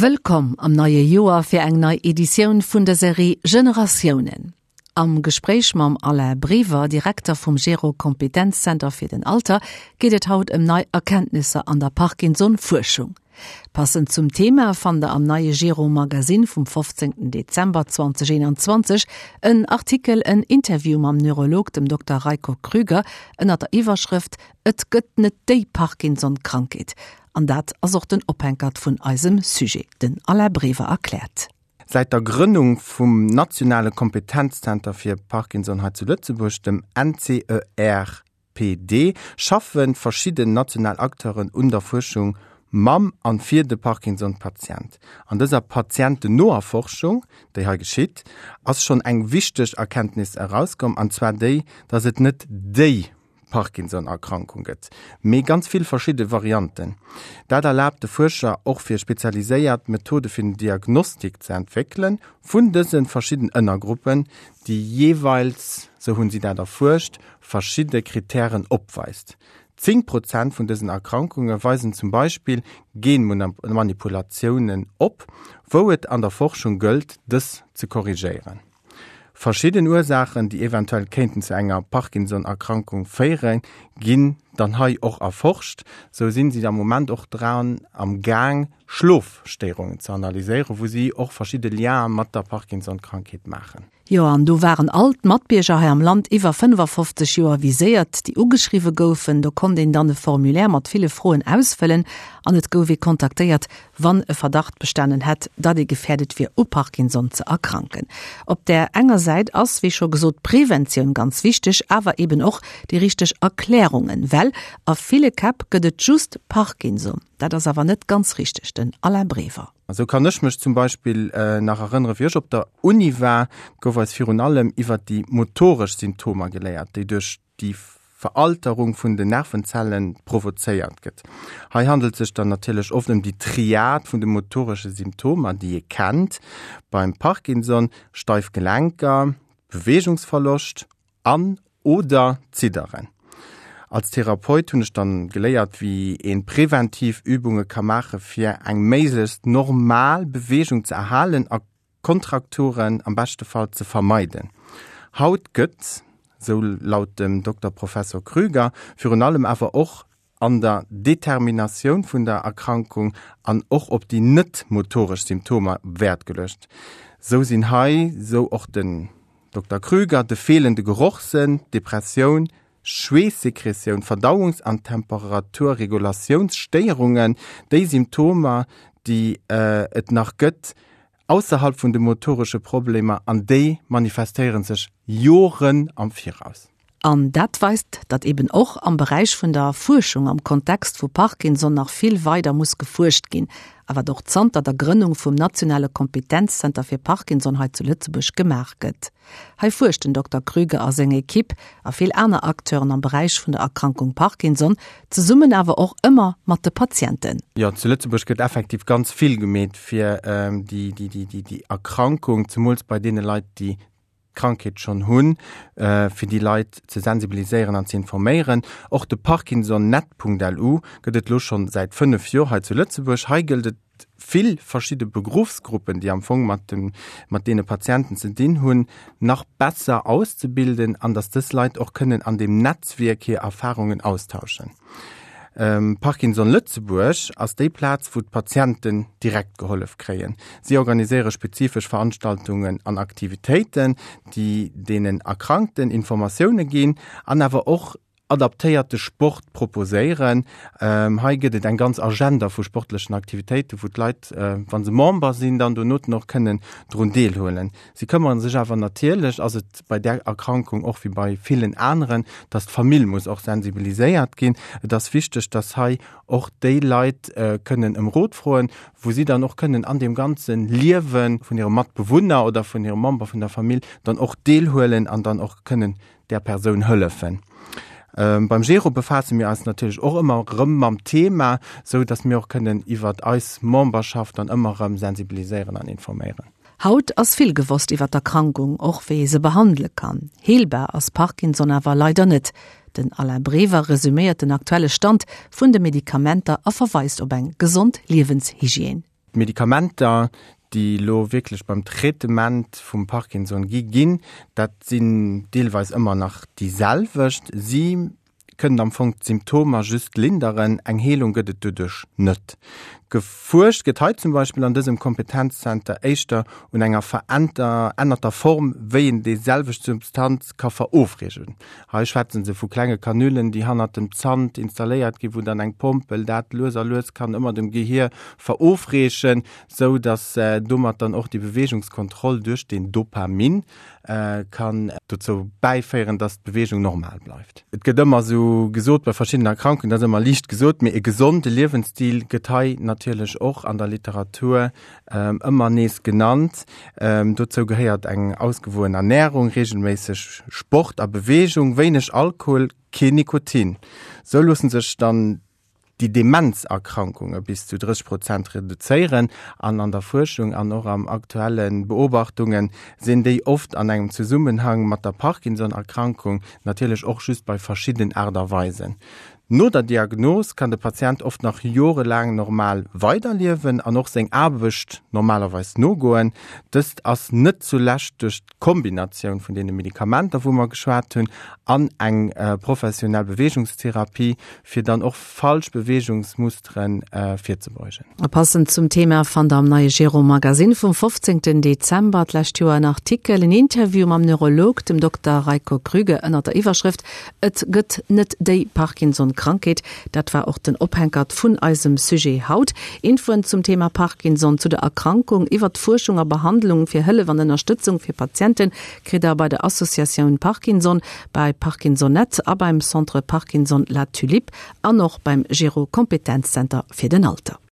Wëllkomm am neie Joer fir eng nei Editioun vun der Serie Generatiounen. Am Gespréich mam Alain Brever, Direkter vum Gero Kompetenzzenter fir den Alter, geet et haut ëm nei Erkenntnisser an der Parkinson-Fuerschung. Passend zum Thema fannt der am neie Gero Magazine vum 15 Dezember 2021 en Artikel, en Interview mam Neurolog, dem Dokter Reiko Krüger, ënnert der Iwwerschrëft Et gëtt net déi Parkinson-Krankheet. An dat ass och den Ophänkert vun eisem Sujet. Den Alain Brever erkläert. Säit der Grënnung vum nationale Kompetenzzenter fir Parkinson hei zu Lëtzebuerg, dem NCERPD, schaffe verschidden national Acteuren un der Fuerschung mam an fir de Parkinson-Patient. An dëser patientennoer Forschung, déi hei geschitt, ass schonn eng wichteg Erkenntnis erauskomm, an zwar déi, dass et net déi Parkinson-Erkrankung gëtt, mee ganz vill verschidde Varianten. Dat erlaabt de Fuerscher och fir spezialiséiert Methode fir den Diagnostik ze entwéckele vun dëse verschidden Ënnergruppen, déi jeeweils, sou hunn si dat erfuerscht, verschidde Krittären opweist. 10 Prozent vun dësen Erkrankunge weisen zum Beispill Genmanipulatiounen op, wou et an der Forschung gëllt, dës ze korrigéieren. Verschidden Ursaachen, déi eventuell kéinten zu enger Parkinson-Erkrankung féieren, ginn dann hei och erforscht. Sou sinn si am Moment och dran am Gaang, Schlofstéierungen ze analyséieren, wou si och verschidde Lienen mat der Parkinson-Krankheet maachen. Jo, an do waren all d'Matbierger hei am Land iwwer 55 Joer viséiert, déi ugeschriwwe goufen. Do konnt een dann e Formulaire mat ville Froen ausfëllen an et gouf ee kontaktéiert, wann e Verdacht bestanen hätt, datt ee gefäerdet wier u Parkinson ze erkranken. Op där enger Säit ass, wéi scho gesot, d'Preventioun ganz wichteg, awer eben och déi richteg Erklärungen, well a ville Käpp gëtt et just Parkinson. Dat ass awer net ganz richteg. Den Alain Brever. Esou kann ech mech zum Beispill nach erënnere wéi ech op der Uni war, gouf eis virun allem iwwert déi motoresch Symptomer geléiert, déi duerch déi Veralterung vun den Nervenzellen provozéiert gëtt. Hei handelt sech dann natierlech oft ëm déi Triad vun de motoresche Symptomer, déi ee kennt beim Parkinson, steif Gelenker, Beweegungsverloscht an, oder Zidderen. Als Therapeut hunn ech dann geléiert, wéi een präventiv Übunge ka maache fir eng méiglechst normal Beweegung ze erhalen a Kontrakturen am beschte Fall ze vermeiden. Haut gëtt, sou laut dem Dokter Professor Krüger, virun allem awer och an der Determinatioun vun der Erkrankung an och op déi net motoresch Symptomer Wäert geluecht. Sou sinn hei, sou och den Dokter Krüger, de feelende Gerochssënn, d'Depressioun, Schweessekretioun, Verdauungs an Temperaturregulatiounsstéierungen, déi Symptomer, déi et nach gëtt, ausserhalb vun de motoresche Problemer, an déi manifestéiere sech Joren am Viraus. An dat weist, datt eben och am Beräich vun der Fuerschung am Kontext vu Parkinson nach vill weider muss gefuerscht ginn, a wat och zanter der Grënnung vum nationale Kompetenzzenter fir Parkinson hei zu Lëtzebuerg gemaach gëtt. Hei fuerscht den Dokter Krüger a seng Ekipp a vill aner Acteuren am Beräich vun der Erkrankung Parkinson, zesummen awer och ëmmer mat de Patienten. Jo, zu Lëtzebuerg gëtt effektiv ganz vill gemeet fir déi Erkrankung, zemools bei deene Leit, déi d'Krankheet schonn hunn, fir déi Leit ze sensibiliséieren an ze informéieren. Och de Parkinsonnet.lu gëtt et elo schonn säit 5 Joer hei zu Lëtzebuerg. Hei gëllt et vill verschidde Beruffsgruppen, déi am Fong mat de mat deene Patienten ze dinn hunn, nach besser auszebilden an datt dës Leit och kënnen an deem Netzwierk hir Erfarungen austauschen. Parkinson Lëtzebuerg ass déi Plaz, wou d'Patienten direkt gehollef kréien. Si organiséiere spezifesch Veranstaltungen an Aktivitéiten, déi deenen Erkrankten Informatioune ginn an awer och adaptéierte Sport proposéieren. Hei gëtt et eng ganz Agenda vu sportlechen Aktivitéiten, wou d'Leit, wa se Member sinn, dann donoten och kënnen drun deelhuelen. Si këmmere sech awer natierlech, ass et bei där Erkrankung och wéi bei villen aneren, dass d'Famill muss och sensibiliséiert ginn. Et ass wichteg, dass hei och déi Leit kënnen ëm Rot froen, wou si dann och kënnen an deem ganze Liewe vun hirem Matbewunner oder vun hirem Member vun der Famill dann och deelhuelen an dann och kënnen där Persoun hëllefen. Beim Gero befaasse mir eis natierlech och ëmmer erëm mam Thema, sou dass mir och kënnen iwwert eis Memberschaft dann ëmmer erëm sensibiliséieren an informéieren. Haut ass vill gewosst iwwer d'Erkrankung, och wéi ee se behandele kann. Heelbar ass Parkinson awer leider net. Den Alain Brever resuméiert den aktuelle Stand vun de Medikamenter a verweist op eng gesond Liewenshygiène. D'Medikamenter, déi elo wierklech beim Traitement vum Parkinson gi ginn, dat sinn deelweis ëmmer nach déi selwecht. Si kënnen am Fong d'Symptomer just linderen, eng Heelung gëtt et doduerch net. Gefuerscht gëtt hei zum Beispill an dësem Kompetenzzenter éischter un enger verännerter Form, wéi een déi selwecht Substanz ka verofreegen. Hei schwätze se vu klenge Kanülen, déi hannert dem Zant installéiert ginn, wou dann eng Pompel dat lues a lues kann ëmmer dem Gehier verofreechen, sou datt domat dann och déi Beweegungskontroll duerch den Dopamin kann dozou bäiféieren, datt d'Beweegung normal bleift. Et gëtt ëmmer esou gesot bei verschiddenen Erkrankungen, dat ass ëmmer liicht gesot, mee e gesonde Liewensstil gëtt hei natierlech och an der Literatur ëmmer nees genannt. Dozou gehéiert eng ausgewoen Ernärung, reegelméisseg Sport a Beweegung, wéineg Alkohol, keen Nikotin. Sou loosse sech dann déi Demenzerkrankunge bis zu 30 Prozent reduzéieren. An an der Fuerschung an och am aktuelle Beobachtunge sinn déi oft an engem Zesummenhang mat der Parkinson-Erkrankung, natierlech och just bei verschiddenen Aart a Weisen. No der Diagnos kann de Patient oft nach jorelaang normal weiderliewen an och seng Aarbecht normalerweis nogoen. Dëst ass net zulescht duerch d'Kombinatioun vun deene Medikamenter, wou mer geschwat hunn, an eng professionell Beweegungstherapie, fir dann och falsch Beweegungsmusteren virzebeugen. A passend zum Thema fannt der am neie Gero Magazine vum 15 Dezember d'lescht Joer en Artikel, en Interview mam Neurolog, dem Dokter Reiko Krüger, ënnert der Iwwerschrëft Et gëtt net déi Parkinson-Krankheet. Dat war och den Ophänkert vun eisem Sujet haut. Infoen zum Thema Parkinson, zu der Erkrankung, iwwert d'Fuerschung a Behandlung, fir Hëllef an Ënnerstëtzung fir Patiente kritt der bei der Associatioun Parkinson, bei Parkinsonet a beim Centre Parkinson La Tulipe an och beim Gero Kompetenzzenter fir den Alter.